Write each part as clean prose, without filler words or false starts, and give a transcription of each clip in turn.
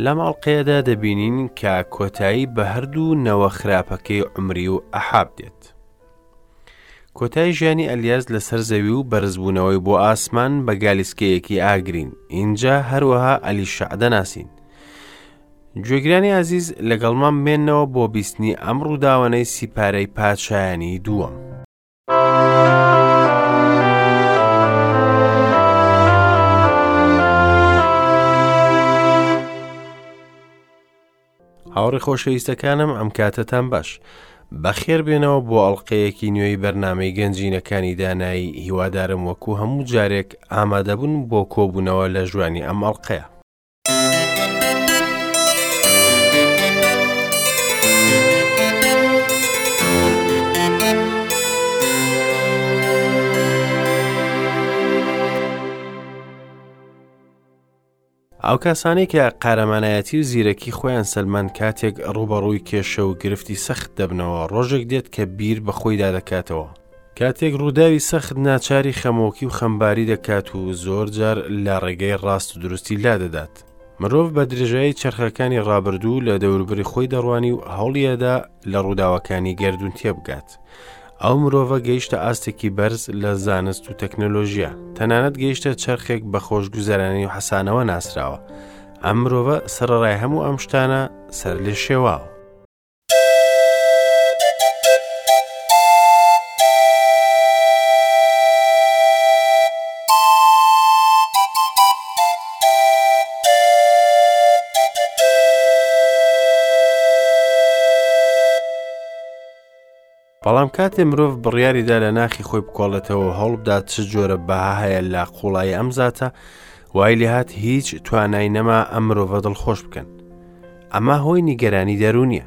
لەم ئەڵقەیەدا دەبینین کە کۆتایی بە هەردوو نەوە خراپەکەی عومری و ئەحاب دێت. کۆتایی ژیانی ئەلیاس لەسەر زەوی و بەرزبوونەوەی بۆ ئاسمان بە گالیسکەیەکی ئاگرین، ئینجا هەروەها ئەلیشەع دەناسین. گوێگرانی ئازیز لەگەڵمان بمێنەوە بۆ بیستنی ئەم ڕووداوانەی سیپارەی پادشایانی دووەم. هاوڕێ خۆشەویستەکانم ئەم کاتەتان باش بەخێر بێنەوە بۆ ئەڵلقەیەکی نوێی بەرنمەی گەنجینەکانی دانایی هیوادارم وەکو هەموو جارێک ئامادەبوون بۆ کۆبوونەوە لە ژوانی ئەم ئەڵلقەیە ئەو کەسانەی کە قارەمانایەتی و زیرەکی خۆیان سەلماند کاتێک ڕووبەڕووی کێشە و گرفتی سەخت دەبنەوە ڕۆژێک دێت کە بیر بە خۆیدا دەکاتەوە کاتێک ڕووداوی سەخت ناچاری خەمۆکی و خەمباری دەکات و زۆر جار لە ڕێگەی ڕاست و دروستی لا دەدات مرۆڤ بە درێژایی چەرخەکانی ڕابردوو لە دەوروبەری خۆی دەڕوانی و هەوڵیەدا لە ڕووداوەکانی گەردوون تێبگات ئەو مرۆڤە گەیشتە ئاستێکی بەرز لە زانست و تەکنەلۆژیا، تەنانەت گەیشتە چەرخێک بە خۆشگوزەرانی و حەسانەوە ناسراوە. ئەم مرۆڤە سەرەڕای هەموو ئەم شتانە سەر لێ شێواوە. بەڵام کاتێ مرۆڤ بڕیاریدا لە ناخی خۆی بکۆڵێتەوە و هەوڵبدات چ جۆرە بەها هەیە لە قوڵایی ئەم زاتە وای لێهات هیچ توانای نەما ئەم مرۆڤە دڵخۆش بکەن ئەمە هۆی نیگەرانی دەروونیە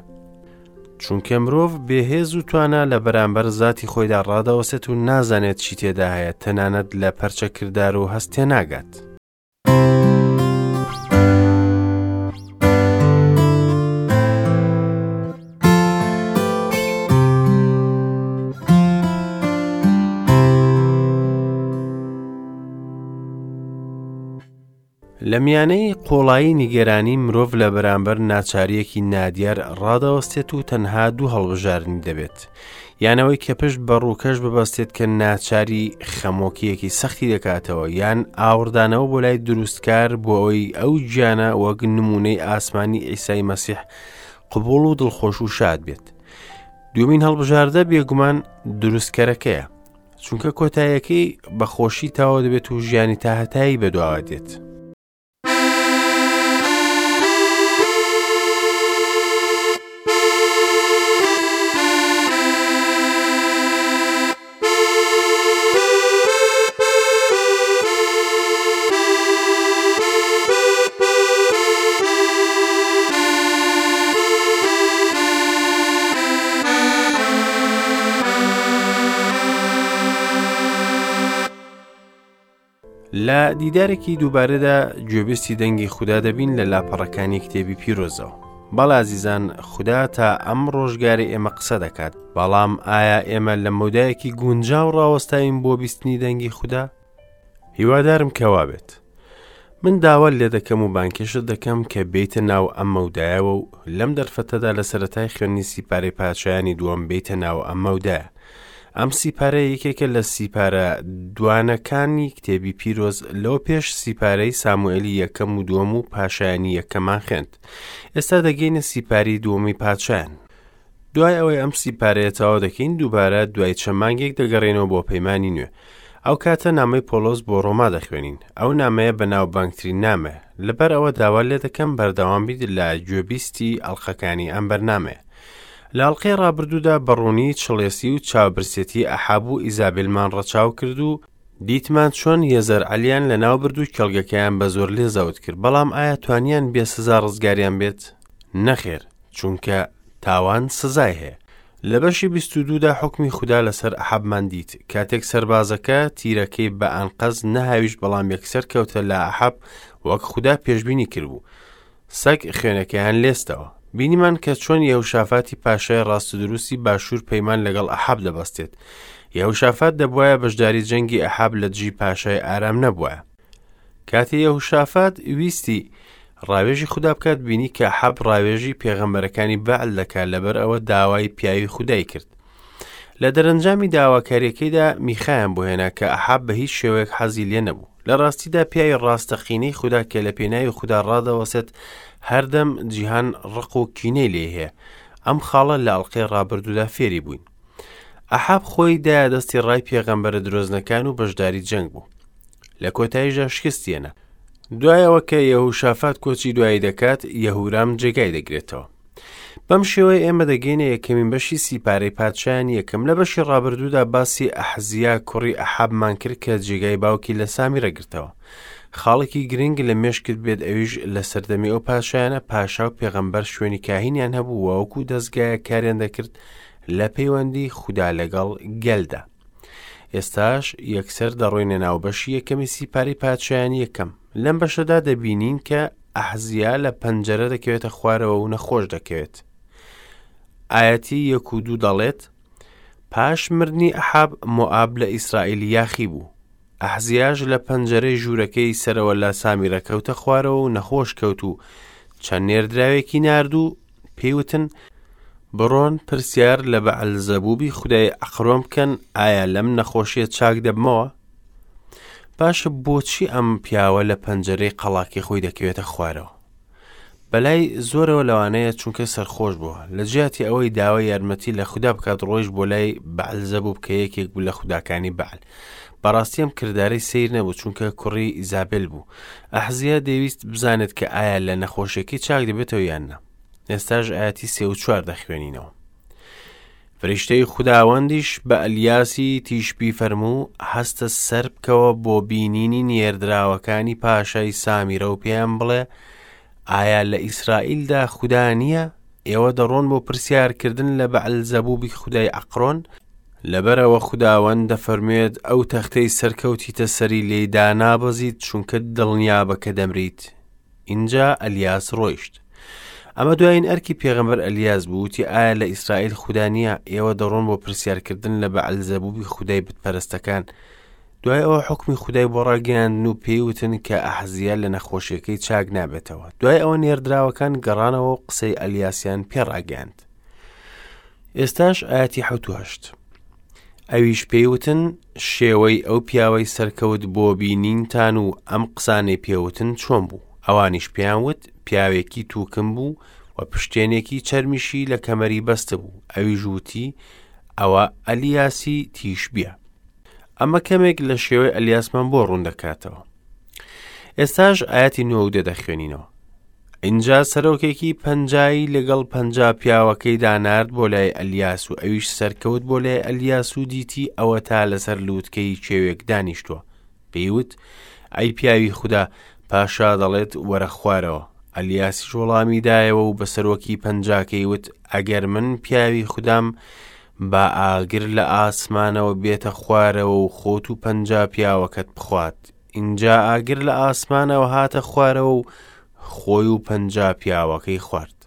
چونکە مرۆڤ بێهێز و توانا لە بەرامبەر زاتی خۆیدا ڕادەوەسێت و نازانێت چی تێدا هەیە تەنانەت لە پەرچەکردار و هەست تێناگات. لە میانەی قوڵایی نیگەرانی مرۆڤ لە بەرامبەر ناچارییەکی نادیار ڕادەوەستێت و تەنها دوو هەڵبژاردنی دەبێت، یان ئەوەی کە پشت بە ڕووکەش ببەستێت کە ناچاری خەمۆکییەکی سەختی دەکاتەوە، یان ئاوڕدانەوە بۆ لای دروستکار بۆ ئەوەی ئەو گیانە وەک نموونەی ئاسمانی عیسای مەسیح قبوڵ و دڵخۆش و شاد بێت. دووەمین هەڵبژاردە بێگومان دروستکەرەکەیە. چونکە کۆتاییەکەی بە خۆشی تەواو دەبێت و ژیانی تاهەتایی بەدواوە دێت. لە دیدارێکی دووبارەدا گوێبیستی دەنگی خودا دەبین لە لاپەڕەکانی کتێبی پیرۆزەوە. بەڵێ ئازیزان خودا تا ئەم ڕۆژگاری ئێمە قسە دەکات، بەڵام ئایا ئێمە لە مەودایەکی گونجاو ڕاوەستاوین بۆ بیستنی دەنگی خودا؟ هیوادارم کە وابێت. من داوات لێ دەکەم و بانگهێشتت دەکەم کە بێیتە ناو ئەم مەودایەوە و لەم دەرفەتەدا لە سەرەتای خوێندنی سیپارەی پادشایانی دووەم بێیتە ناو ئەم مەودایە. ئەم سیپارە یەکێکە لە سیپارە دوانەکانی کتێبی پیرۆز لەوە پێش سیپارەی ساموئێلی یەکەم و دووەم و پاشایانی یەکەمان خوێند. ئێستا دەگەینە سیپاری دووەمی پادشایان. دوای ئەوەی ئەم سیپارەیە تەواو دەکەین دووبارە دوای چەند مانگێک دەگەڕێنەوە بۆ پەیمانی نوێ. ئەو کاتە نامەی پۆڵۆس بۆ ڕۆما دەخوێنین. ئەو نامەیە بەناوبانگترین نامەیە. لەبەر ئەوە داوات لێ دەکەم بەردەوام بیت لە گوێبیستی ئەڵقەکانی ئەم بەرنامەیە. لە ئەڵقەی ڕابردوودا بە ڕوونی چڵێسی و چاوبرسێتی ئەحاب و ئیزابێلمان ڕەچاو کرد و دیتمان چۆن یەزەرعەلیان لەناو برد و کێڵگەکەیان بە زۆر لێ زەوت کرد، بەڵام ئایا توانیان بێ سزا ڕزگاریان بێت؟ نەخێر، چونکە تاوان سزای هەیە. لە بەشی 22 دا حوکمی خودا لەسەر ئەحەبمان دیت، کاتێک سەربازەکە تیرەکەی بە ئەنقەست نەهاویشت بەڵام یەکسەر کەوتە لا ئەحەب وەک خودا پێشبینی کردبوو. سەگ خوێنەکەیان لێستەوە. بینیمان کە چۆن یەهوشافاتی پاشای ڕاستودروستی باشوور پەیمان لەگەڵ ئەحاب دەبەستێت. یەهوشافات دەبوایە بەشداری جەنگی ئەحاب لە دژی پاشای ئارام نەبوایە. کاتێ یەهوشافات ویستی ڕاوێژی خودا بکات بینی کە ئەحاب ڕاوێژی پێغەمبەرەکانی بەعل دەکات لەبەر ئەوە داوای پیاوی خودای کرد. لە دەرەنجامی داواکاریەکەیدا میخایان بۆ هێنا کە ئەحاب بە هیچ شێوەیەک حەزی لێ نەبوو. لە ڕاستیدا پیاوی ڕاستەقینەی خودا کە لە پێناوی خودا ڕادەوەسێت هەردەم جیهان ڕق و کینەی لێ هەیە. ئەم خاڵە لە ئەڵقەی ڕابردوودا فێری بووین. ئەحاب خۆی دایە دەستی ڕای پێغەمبەرە درۆزنەکان و بەشداری جەنگ بوو. لە کۆتاییشدا شکستی هێنا. دوای ئەوە کە یەهوشافات کۆچی دوایی دەکات، یەهورام جێگای دەگرێتەوە. بەم شێوەیە ئێمە دەگەینە یەکەمین بەشی سیپارەی پادشایانی یەکەم. لە بەشی ڕابردوودا باسی ئەحزیا کوڕی ئەحابمان کرد کە جێگای باوکی لە سامیرە گرتەوە. خاڵێکی گرنگ لە مێشکت بێت ئەویش لە سەردەمی ئەو پادشایانە پاشا و پێغەمبەر شوێنی کاهینیان هەبوو و وەکو دەزگایەک کاریان دەکرد لە پەیوەندی خودا لەگەڵ گەلدا. ئێستاش یەکسەر دەڕۆینە ناو بەشی یەکەمی سیپارەی پادشایانی یەکەم. لەم بەشەدا دەبینین کە ئەحزیا لە پەنجەرە دەکەوێتە خوارەوە و نەخۆش دەکەوێت. ئایەتی یەک و دوو دەڵێت، پاش مردنی ئەحاب مۆئاب لە ئیسرائیل یاخی بوو. ئەحزیاش لە پەنجەرەی ژوورەکەی سەرەوە لە سامیرە کەوتە خوارەوە و نەخۆش کەوت و چەند نێردراوێکی نارد و پێی وتن، بڕۆن پرسیار لە بەعلزەبوبی خودای عەقرۆن بکەن ئایا لەم نەخۆشیە چاک دەبمەوە؟ باشە بۆچی ئەم پیاوە لە پەنجەرەی قەڵاکەی خۆی دەکەوێتە خوارەوە؟ بەلای زۆرەوە لەوانەیە چونکە سەرخۆش بووە لە جیاتی ئەوەی داوای یارمەتی لە خودا بکات ڕۆیشت بۆ لای بەعلزەبوب کە یەکێک بوو لە خوداکانی بەعل بەڕاستی ئەم کردارەی سەیر نەبوو چونکە کوڕی ئیزابێل بوو ئەحزیا دەیویست بزانێت کە ئایا لە نەخۆشیەکەی چاک دەبێتەوە یان نا ئێستاش ئاەتی سێ و چوار دەخوێنینەوە فریشتەی خوداوەندیش بە ئەلیاسی تیشبی فەرموو هەستە سەر بکەوە بۆ بینینی نێردراوەکانی پاشای سامیرە و پێیان بڵێ ئایا لە ئیسرائیلدا خودا نییە؟ ئێوە دەڕۆن بۆ پرسیارکردن لە بەعلزەبوبی خودای عەقرۆن؟ لەبەرئەوە خوداوەند دەفەرموێت ئەو تەختەی سەرکەوتیتە سەری لێی دانابەزیت چونکە دڵنیابە کە دەمریت. ئینجا ئەلیاس ڕۆیشت. ئەمە دوایین ئەرکی پێغەمبەر ئەلیاس بوو وتی ئایا لە ئیسرائیل خودا نییە؟ ئێوە دەڕۆن بۆ پرسیارکردن لە بەعلزەبوبی خودای بتپەرستەکان. دوای ئەوە حوکمی خودای بۆ ڕاگەیاندن و پێی وتن کە ئەحزیا لە نەخۆشیەکەی چاک نابێتەوە. دوای ئەوە نێردراوەکان گەڕانەوە و قسەی ئەلیاسیان پێ ڕاگەیاند. ئێستاش ئاەتی حەوت و هەشت. ئەویش پێی وتن شێوەی ئەو پیاوەی سەرکەوت بۆ بینینتان و ئەم قسانەی پێوتن چۆن بوو؟ ئەوانیش پێیان وت پیاوێکی تووکم بوو و پشتێنێکی چەرمیشی لە کەمەری بەستبوو. ئەویش وتی ئەوە ئەلیاسی تیشبیە. ئەمە کەمێک لە شێوەی ئەلیاسمان بۆ ڕوون دەکاتەوە. ئێستاش ئاەتی نۆ و دە دەخوێنینەوە. ئینجا سەرۆکێکی پەنجایی لەگەڵ پەنجا پیاوەکەیدا نارد بۆ لای ئەلیاس و ئەویش سەرکەوت بۆ لای ئەلیاس و دیتی ئەوەتا لەسەر لووتکەی کێوێک دانیشتووە. پێی وت، ئەی پیاوی خودا، پاشا دەڵێت وەرە خوارەوە. ئەلیاسیش وەڵامی دایەوە و بە سەرۆکی پەنجاکەی وت، ئەگەر من پیاوی خودام، با ئاگر لە ئاسمانەوە بێتە خوارەوە و خۆت و پەنجا پیاوەکەت بخوات. ئینجا ئاگر لە ئاسمانەوە هاتە خوارەوە و خۆی و پەنجا پیاوەکەی خوارد.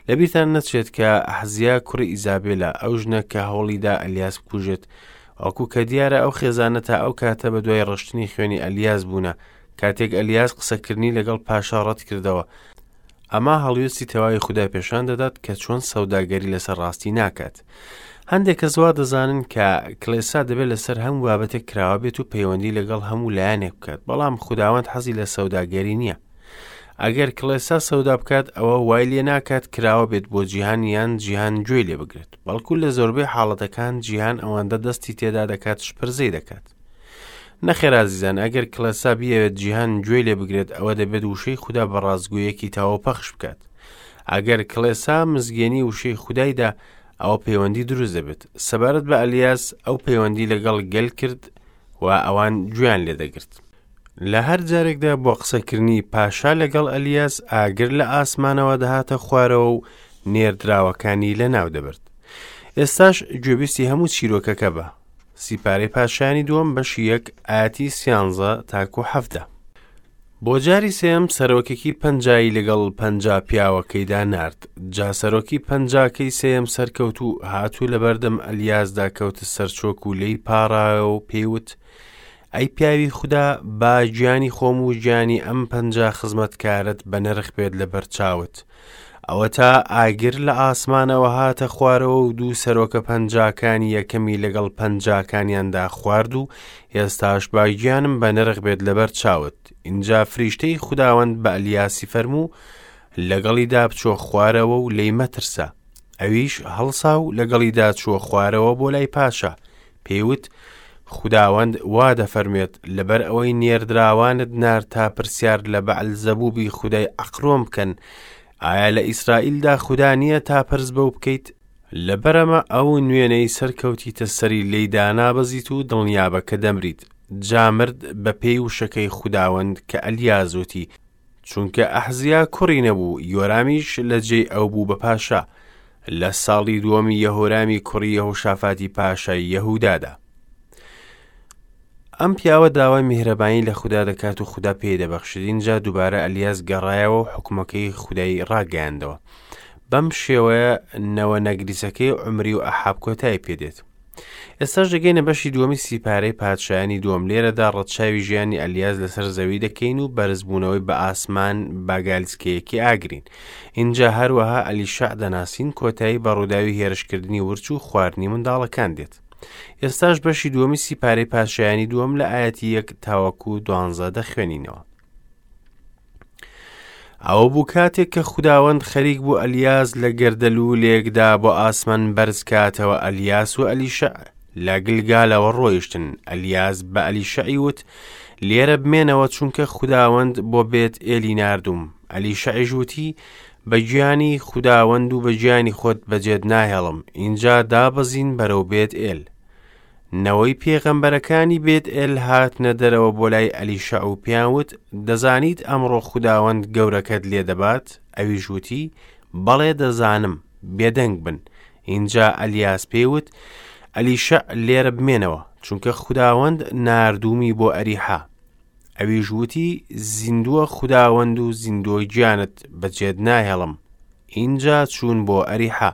لەبیرتان نەچێت کە ئەحزیا کوڕی ئیزابێلە، ئەو ژنە کە هەوڵیدا ئەلیاس بکوژێت، وەکو کە دیارە ئەو خێزانە تا ئەو کاتە بە دوای ڕشتنی خوێنی ئەلیاس بوونە، کاتێک ئەلیاس قسەکردنی لەگەڵ پاشا ڕەت کردەوە. ئەمە هەڵوێستی تەواوی خودای پێشان دەدات کە چۆن سەوداگەری لەسەر ڕاستی ناکات. هەندێک کەس وا دەزانن کە کڵێسا دەبێت لەسەر هەموو بابەتێک کراوە بێت و پەیوەندی لەگەڵ هەموو لایەنێک بکات، بەڵام خوداوەند حەزی لە سەوداگەری نییە. ئەگەر کڵێسا سەودا بکات ئەوە وای لێ ناکات کراوە بێت بۆ جیهان یان جیهان گوێی لێ بگرێت، بەڵکو لە زۆربەی حاڵەتەکان جیهان ئەوەندە دەستی تێدا دەکات شپرزەی دەکات. نەخێر ئازیزان ئەگەر کڵێسا بیەوێت جیهان گوێی لێ بگرێت ئەوە دەبێت وشەی خودا بە ڕاستگۆیەکی تەواو پەخش بکات. ئەگەر کڵێسا مزگێنی وشەی خودایدا ئەوە پەیوەندی دروست دەبێت. سەبارەت بە ئەلیاس ئەو پەیوەندی لەگەڵ گەل کرد و ئەوان گوێیان لێ دەگرت. لە هەر جارێکدا بۆ قسەکردنی پاشا لەگەڵ ئەلیاس ئاگر لە ئاسمانەوە دەهاتە خوارەوە و نێردراوەکانی لەناو دەبرد. ئێستاش گوێبیستی هەموو چیرۆکەکە بە. سیپارەی پادشایانی دووەم بەشی یەک ئاەتی سیانزە تاکو حەفدە. بۆ جاری سێم سەرۆکێکی پەنجایی لەگەڵ پەنجا پیاوەکەیدا نارد. جا سەرۆکی پەنجاکەی سێیەم سەرکەوت و هات و لەبەردەم ئەلیاسدا کەوتە سەرچۆک و لێی پاڕایەوە و پێی وت، ئەی پیاوی خودا، با گیانی خۆم و گیانی ئەم 50 خزمەتکارەت بە نرخ بێت لەبەر چاوت. ئەوەتا ئاگر لە ئاسمانەوە هاتە خوارەوە و دوو سەرۆکە پەنجاکانی یەکەمی لەگەڵ پەنجاکانیاندا خوارد و ئێستاش با گیانم بە نرخ بێت لەبەر چاوت. ئینجا فریشتەی خوداوەند بە ئەلیاسی فەرموو، لەگەڵیدا بچۆ خوارەوە و لێی مەترسە. ئەویش هەڵسا و لەگەڵیدا چووە خوارەوە بۆ لای پاشا. پێی وت، خوداوەند وا دەفەرموێت، لەبەر ئەوەی نێردراوانت نارد تا پرسیار لە بەعلزەبوبی خودای عەقرۆن بکەن، ئایا لە ئیسرائیلدا خودا نییە تا پرس بەو بکەیت؟ لەبەرئەمە ئەو نوێنەی سەرکەوتیتە سەری لێی دانابەزیت و دڵنیابە کە دەمریت. جا مرد بەپێی وشەکەی خوداوەند کە ئەلیاس وتی، چونکە ئەحزیا کوڕی نەبوو، یۆرامیش لە جێی ئەو بوو بە پاشا، لە ساڵی دووەمی یەهۆرامی کوڕی یەهۆشافاتی پاشای یەهودادا. ئەم پیاوە داوای میهرەبانی لە خودا دەکات و خودا پێی دەبەخشێت. ئینجا دووبارە ئەلیاس گەڕایەوە و حکومەکەی خودای ڕاگەیاندەوە. بەم شێوەیە نەوە نەگریسەکەی عومری و ئەحاب کۆتایی پێدێت. ئێستاش دەگەینە بەشی دووەمی سیپارەی پادشایانی دووەم. لێرەدا ڕەچاوی ژیانی ئەلیاس لەسەر زەوی دەکەین و بەرزبوونەوەی بە ئاسمان بە گالیسکەیەکی ئاگرین. ئینجا هەروەها ئەلیشەع دەناسین، کۆتایی بە ڕووداوی هێرشکردنی ورچ و خواردنی منداڵەکان دێت. ئێستاش بەشی دووەمی سیپارەی پادشایانی دووەم لە ئایەتی یەک تاوەکو دوانزە دەخوێنینەوە. ئەوە بوو کاتێک کە خوداوەند خەریک بوو ئەلیاس لە گەردەلوولێکدا بۆ ئاسمان بەرز کاتەوە ئەلیاس و ئەلیشەع لە گلگالەوە ڕۆیشتن ئەلیاس بە ئەلیشەعی وت لێرە بمێنەوە چونکە خوداوەند بۆ بێت ئێلی ناردوم ئەلیشەعیش وتی بە گیانی خوداوەند و بە گیانی خۆت بەجێت ناهێڵم ئینجا دابەزین بەرەو بێت ئێل نەوەی پێغەمبەرەکانی بێت ئێل هاتنە دەرەوە بۆ لای ئەلیشەع و پێیان وت، دەزانیت ئەمڕۆ خوداوەند گەورەکەت لێ دەبات؟ ئەویش وتی، بەڵێ دەزانم، بێدەنگ بن. ئینجا ئەلیاس پێی وت، ئەلیشەع لێرە بمێنەوە، چونکە خوداوەند ناردوومی بۆ ئەریحا. ئەویش وتی، زیندووە خوداوەند و زیندووە گیانت، بەجێت ناهێڵم. ئینجا چوون بۆ ئەریحا.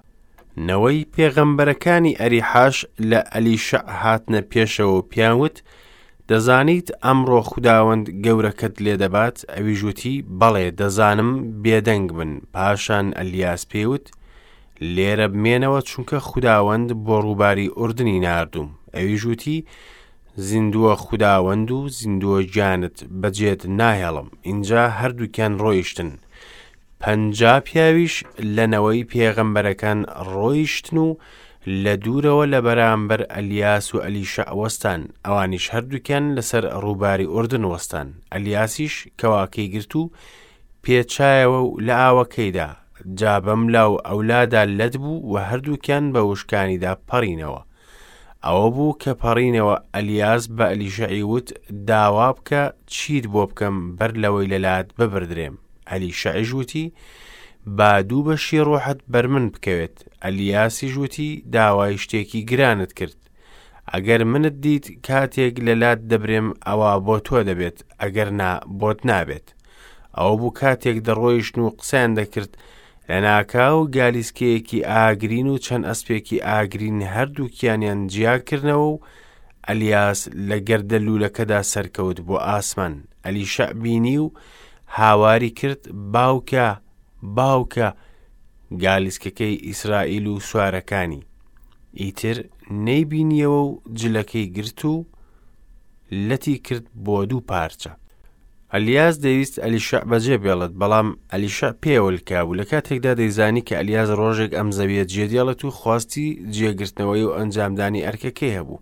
نەوەی پێغەمبەرەکانی ئەریحاش لە ئەلیشەع هاتنە پێشەوە و پێیان وت، دەزانیت ئەمڕۆ خوداوەند گەورەکەت لێ دەبات؟ ئەویش وتی، بەڵێ دەزانم، بێدەنگ بن. پاشان ئەلیاس پێی وت، لێرە بمێنەوە، چونکە خوداوەند بۆ ڕووباری ئوردنی ناردووم. ئەویش وتی، زیندووە خوداوەند و زیندووە گیانت، بەجێت ناهێڵم. ئینجا هەردووکیان ڕۆیشتن. 50 پیاویش لە نەوەی پێغەمبەرەکان ڕۆیشتن و لە دوورەوە لە بەرامبەر ئەلیاس و ئەلیشەع وەستان، ئەوانیش هەردووکیان لەسەر ڕووباری ئوردن وەستان. ئەلیاسیش کەواکەی گرت و پێچایەوە و لە ئاوەکەیدا، جا بەملا و ئەولادا لەت بوو و هەردووکیان بە وشکانیدا پەڕینەوە. ئەوە بوو کە پەڕینەوە ئەلیاس بە ئەلیشەعی وت، داوا بکە چیت بۆ بکەم بەر لەوەی لەلات ببردرێم. ئەلیشەعیش وتی، با دوو بەشی ڕۆحت بەر من بکەوێت. ئەلیاسیش وتی، داوای شتێکی گرانت کرد. ئەگەر منت دیت کاتێک لەلات دەبرێم ئەوا بۆ تۆ دەبێت، ئەگەر نا بۆت نابێت. ئەوە بوو کاتێک دەڕۆیشتن و قسەیان دەکرد، لەناکاو گالیسکەیەکی ئاگرین و چەند ئەسپێکی ئاگرین هەردووکیانیان جیا کردنەوە و ئەلیاس لە گەردەلوولەکەدا سەرکەوت بۆ ئاسمان. ئەلیشەع بینی و هاواری کرد، باوکە، باوکە، گالیسکەکەی ئیسرائیل و سوارەکانی. ئیتر نەیبینیەوە و جلەکەی گرت و لەتی کرد بۆ دوو پارچە. ئەلیاس دەیویست ئەلیشەع بەجێ بێڵێت، بەڵام ئەلیشەع پێیەوە لکابوو، لە کاتێکدا دەیزانی کە ئەلیاس ڕۆژێک ئەم زەویە جێدێڵێت و خواستی جێگرتنەوەی و ئەنجامدانی ئەرکەکەی هەبوو.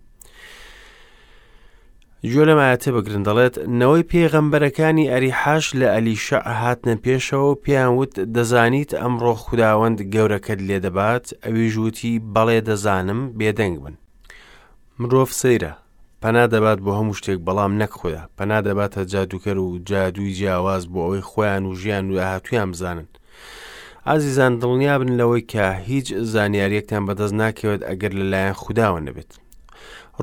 گوێ لەم ئایەتە بگرن دەڵێت نەوەی پێغەمبەرەکانی ئەریحاش لە ئەلیشەع هاتنە پێشەوە و پێیان وت دەزانیت ئەمڕۆ خوداوەند گەورەکەت لێ دەبات ئەویش وتی بەڵێ دەزانم بێدەنگ بن مرۆڤ سەیرە پەنا دەبات بۆ هەموو شتێک بەڵام نەک خودا پەنا دەباتە جادووکەر و جادووی جیاواز بۆ ئەوەی خۆیان و ژیان و داهاتوویان بزانن ئازیزان دڵنیابن لەوەی کە هیچ زانیاریەکتان بەدەست ناکەوێت ئەگەر لەلایەن خودداوە نەبێت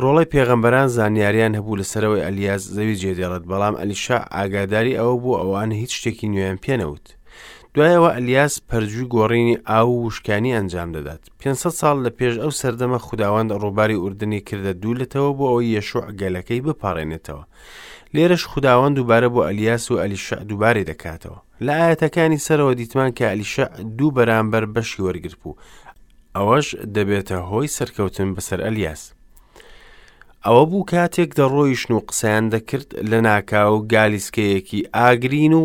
ڕۆڵەی پێغەمبەران زانیاریان هەبوو لەسەرەوەی ئەلیاس زەوی جێدێڵێت بەڵام ئەلیشا ئاگاداری ئەوە بوو ئەوان هیچ شتێکی نوێیان پێنەوت. دوای ئەوە ئەلیاس پەرجووی گۆڕینی ئاو و وشکانی ئەنجام دەدات. 500 ساڵ لە پێش ئەو سەردەمە خوداوەند ڕووباری ئوردنی کردە دوو لەتەوە بۆ ئەوەی یەشوع گەلەکەی بپەڕێنێتەوە. لێرەش خوداوەند دووبارە بۆ ئەلیاس و ئەلیشع دووبارەی دەکاتەوە. لە ئایەتەکانی سەرەوە دیتمان کە ئەلیشع دوو بەرامبەر بەشی وەرگرتبوو. ئەوەش دەبێتە هۆی سەرکەوتن بەسەر ئەلیاس. ئەوە بوو کاتێک دەڕۆیشن و قسەیان دەکرد لە ناکاو گالیسکەیەکی ئاگرین و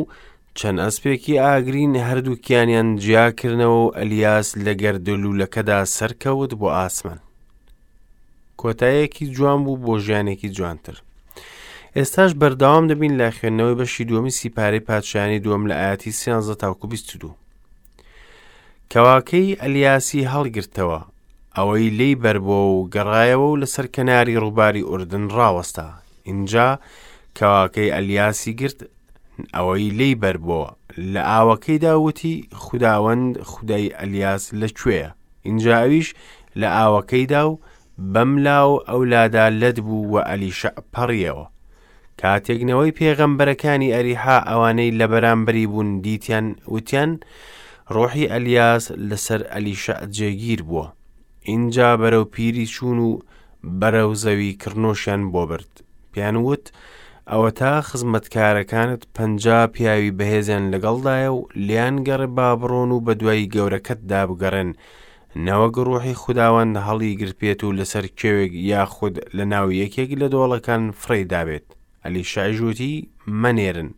چەند ئەسپێکی ئاگرین هەردووکیانیان جیاکردنەوە و ئەلیاس لە گەردەلوولەکەدا سەرکەوت بۆ ئاسمان. کۆتایەکی جوان بوو بۆ ژیانێکی جوانتر. ئێستاش بەردەوام دەبین لە خوێندنەوەی بەشی دووەمی سیپارەی پادشایانی دووەم لە ئاەتی سیانزە تاوکو 22. کەواکەی ئەلیاسی هەڵگرتەوە، ئەوەی لێی بەربووە و گەڕایەوە و لەسەر کەناری ڕووباری ئوردن ڕاوەستا. ئینجا کەواکەی ئەلیاسی گرت، ئەوەی لێی بەربووە، لە ئاوەکەیدا وتی، خوداوەند خودای ئەلیاس لەکوێیە؟ ئینجا ئەویش لە ئاوەکەیدا و بەم لا و ئەو لادا لەت بوو و ئەلیشەع پەڕیەوە. کاتێک نەوەی پێغەمبەرەکانی ئەریحا ئەوانەی لە بەرامبەری بوون دیتیان، وتیان، ڕۆحی ئەلیاس لەسەر ئەلیشەع جێگیر بووە. ئینجا بەرەو پیری چوون و بەرەو زەوی کڕنۆشیان بۆ برد. پێیان وت، ئەوەتا خزمەتکارەکانت 50 پیاوی بەهێزیان لەگەڵدایە و لێیان گەڕێ با بڕۆن و بەدوای گەورەکەتدا بگەڕێن، نەوەک ڕوحی خوداوەند هەڵیگرتبێت و لەسەر کێوێک یاخود لەناو یەکێک لە دۆڵەکان فڕێی دابێت. ئەلیشەعیش وتی، مەنێرن.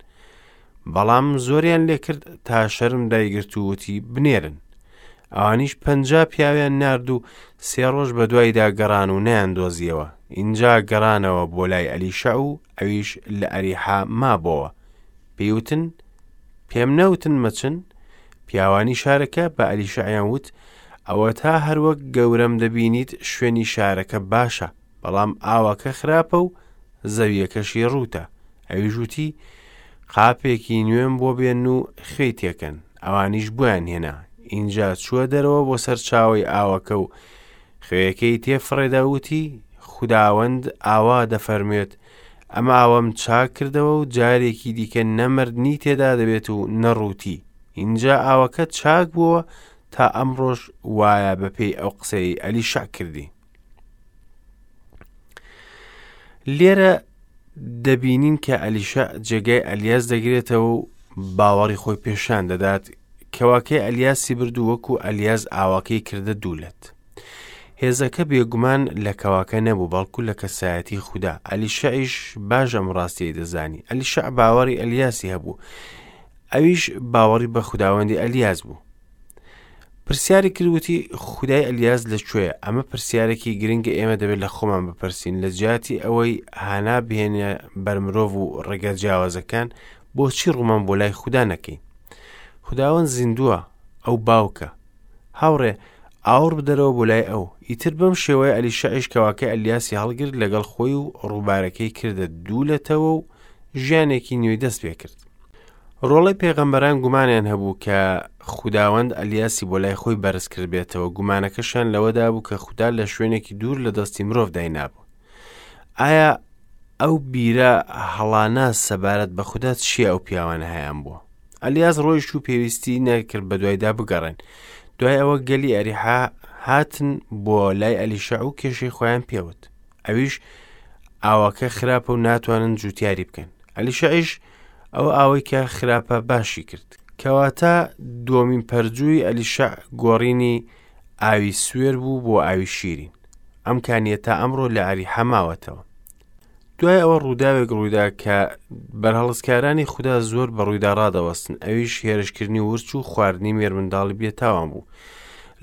بەڵام زۆریان لێکرد تا شەرم دایگرت و وتی، بنێرن. ئەوانیش 50 پیاویان نارد و سێ ڕۆژ بەدوایدا گەڕان و نەیاندۆزیەوە. ئینجا گەڕانەوە بۆ لای ئەلیشەع و ئەویش لە ئەریحا مابۆوە. پێی وتن، پێم نەوتن مەچن؟ پیاوانی شارەکە بە ئەلیشەعیان وت، ئەوەتا هەروەک گەورەم دەبینیت شوێنی شارەکە باشە، بەڵام ئاوەکە خراپە و زەویەکەشی ڕووتە. ئەویش وتی، قاپێکی نوێم بۆ بێن و خوێی تێکەن. ئەوانیش بۆیان هێنا. ئینجا چووە دەرەوە بۆ سەرچاوەی ئاوەکە و خوێیەکەی تێفڕێدا و وتی، خوداوەند ئاوا دەفەرموێت، ئەم ئاوەم چاک کردەوە و جارێکی دیکە نە مردنی تێدا دەبێت و نە ڕووتی. ئینجا ئاوەکە چاک بووەوە تا ئەمڕۆش وایە بەپێی ئەو قسەی ئەلیشع کردی. لێرە دەبینین کە ئەلیشە جێگای ئەلیاس دەگرێتەوە و باوەڕی خۆی پێشان دەدات کەواکەی ئەلیاسی برد و وەکو ئەلیاس ئاواکەی کردە دوولەت. هێزەکە بێگومان لە کەواکە نەبوو بەڵکو لە کەسایەتی خودا ئەلیشەعیش باش ئەم ڕاستیەی دەزانی ئەلیشەع باوەڕی ئەلیاسی هەبوو ئەویش باوەڕی بە خوداوەندی ئەلیاس بوو پرسیاری کرد وتی خودای ئەلیاس لە کوێیە ئەمە پرسیارێکی گرنگە ئێمە دەبێت لە خۆمان بپرسین لە جیاتی ئەوەی هانا بهێنە بەر مرۆڤ و ڕێگە جیاوازەکان بۆچی ڕوومان بۆ لای خودا نەکەین خداوەند زیندووە ئەو باوکە هاوڕێ ئاوڕ بدەرەوە بۆ لای ئەو ئیتر بەم شێوەیە ئەلیشەعیش کەواکەی ئەلیاسی هەڵگرت لەگەڵ خۆی و ڕووبارەکەی کردە دوو لەتەوە و ژیانێکی نوێی دەست پێ کرد ڕۆڵەی پێغەمبەران گومانیان هەبوو کە خوداوەند ئەلیاسی بۆ لای خۆی بەرز کردبێتەوە، گومانەکەشیان لەوەدا بوو کە خودا لە شوێنێکی دوور لە دەستی مرۆڤ داینابوو. ئایا ئەو بیرە هەڵانە سەبارەت بە خودا چییە ئەو پیاوانە هەیان بووە؟ ئەلیاس ڕۆیشت و پێویستی نەکرد بە دوایدا بگەڕێن. دوای ئەوە گەلی ئەریحا هاتن بۆ لای ئەلیشەع و کێشەی خۆیان پێوت. ئەویش ئاوەکە خراپە و ناتوانن جوتیاری بکەن. ئەلیشەعیش ئەو ئاوەی کە خراپە باشی کرد. کەواتە دووەمین پەرجووی ئەلیشەع گۆڕینی ئاوی سوێر بوو بۆ ئاوی شیرین. ئەم کانیە تا ئەمڕۆ لە ئەریحا ماوەتەوە. دوای ئەوە ڕووداوێک ڕوویدا کە بەرهەڵستکارانی خودا زۆر بە ڕوویدا ڕادەوەستن، ئەویش هێرشکردنی ورچ و خواردنی مێرمنداڵی بێتاوان بوو.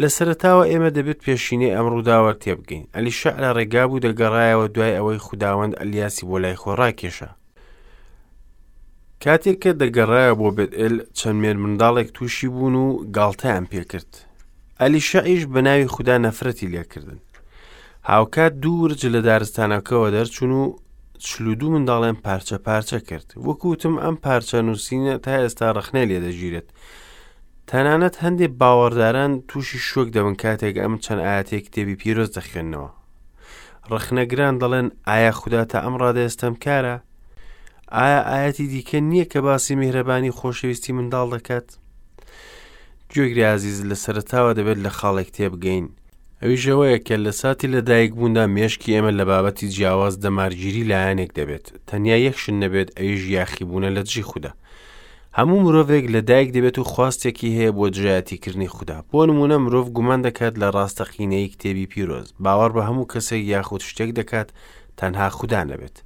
لە سەرەتاوە ئێمە دەبێت پێشینەی ئەم ڕووداوە تێبگەین. ئەلیشەع لە ڕێگا بوو دەگەڕایەوە دوای ئەوەی خوداوەند ئەلیاسی بۆ لای خۆی ڕاکێشا. کاتێک کە دەگەڕایەوە بۆ بێتئێل چەند مێرمنداڵێک تووشی بوون و گاڵتەیان پێکرد. ئەلیشەعیش بە ناوی خودا نەفرەتی لێکردن. هاوکات دوو ورچ لە دارستانەکەوە دەرچوون و 42 منداڵیان پارچە پارچە کرد. وەکو وتم ئەم پارچە نووسینە تا ئێستا ڕەخنەی لێدەگیرێت. تەنانەت هەندێک باوەڕداران تووشی شۆک دەبن کاتێک ئەم چەند ئاەتەی کتێبی پیرۆز دەخوێننەوە. ڕەخنەگران دەڵێن ئایا خودا تا ئەم ڕادەیە ستەمکارە؟ ئایا ئاەتی دیکە نییە کە باسی میهرەبانی خۆشەویستی منداڵ دەکات؟ گوێگری ئازیز لە سەرەتاوە دەبێت لە خاڵێک تێبگەین، ئەویش ئەوەیە کە لە ساتی لەدایکبووندا مێشکی ئێمە لە بابەتی جیاواز دەمارگیری لایەنێک دەبێت، تەنیا یەک شت نەبێت ئەویش یاخیبوونە لە دژی خودا. هەموو مرۆڤێک لە دایک دەبێت و خواستێکی هەیە بۆ دژایەتیکردنی خودا. بۆ نموونە مرۆڤ گومان دەکات لە ڕاستەقینەیی کتێبی پیرۆز، باوەڕ بە هەموو کەسێک یاخود شتێک دەکات تەنها خودا نەبێت.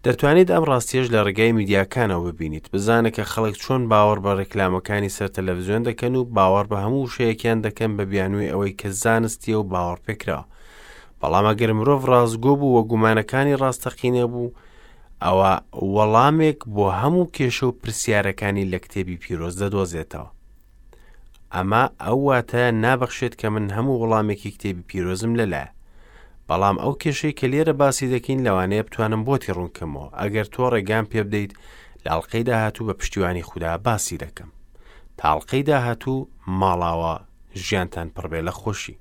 دەتوانیت ئەم ڕاستیەش لە ڕێگای میدیاکانەوە ببینیت، بزانە کە خەڵک چۆن باوەڕ بە ڕێکلامەکانی سەر تەلەڤزیۆن دەکەن و باوەڕ بە هەموو وشەیەکیان دەکەن بە بیانووی ئەوەی کە زانستیە و باوەڕپێکراوە. بەڵام ئەگەر مرۆڤ ڕاستگۆ بوو و گومانەکانی ڕاستەقینە بوو، ئەوا وەڵامێک بۆ هەموو کێشە و پرسیارەکانی لە کتێبی پیرۆز دەدۆزێتەوە. ئەمە ئەو واتایە نابەخشێت کە من هەموو وەڵامێکی کتێبی پیرۆزم لەلایە. بەڵام ئەو کێشەی کە لێرە باسی دەکەین لەوانەیە بتوانم بۆتی ڕوونکەمەوە ئەگەر تۆ ڕێگام پێ بدەیت لە ئەڵقەی داهاتوو بە پشتیوانی خودا باسی دەکەم. تا ئەڵقەی داهاتوو ماڵاوا ژیانتان پڕبێ لە خۆشی.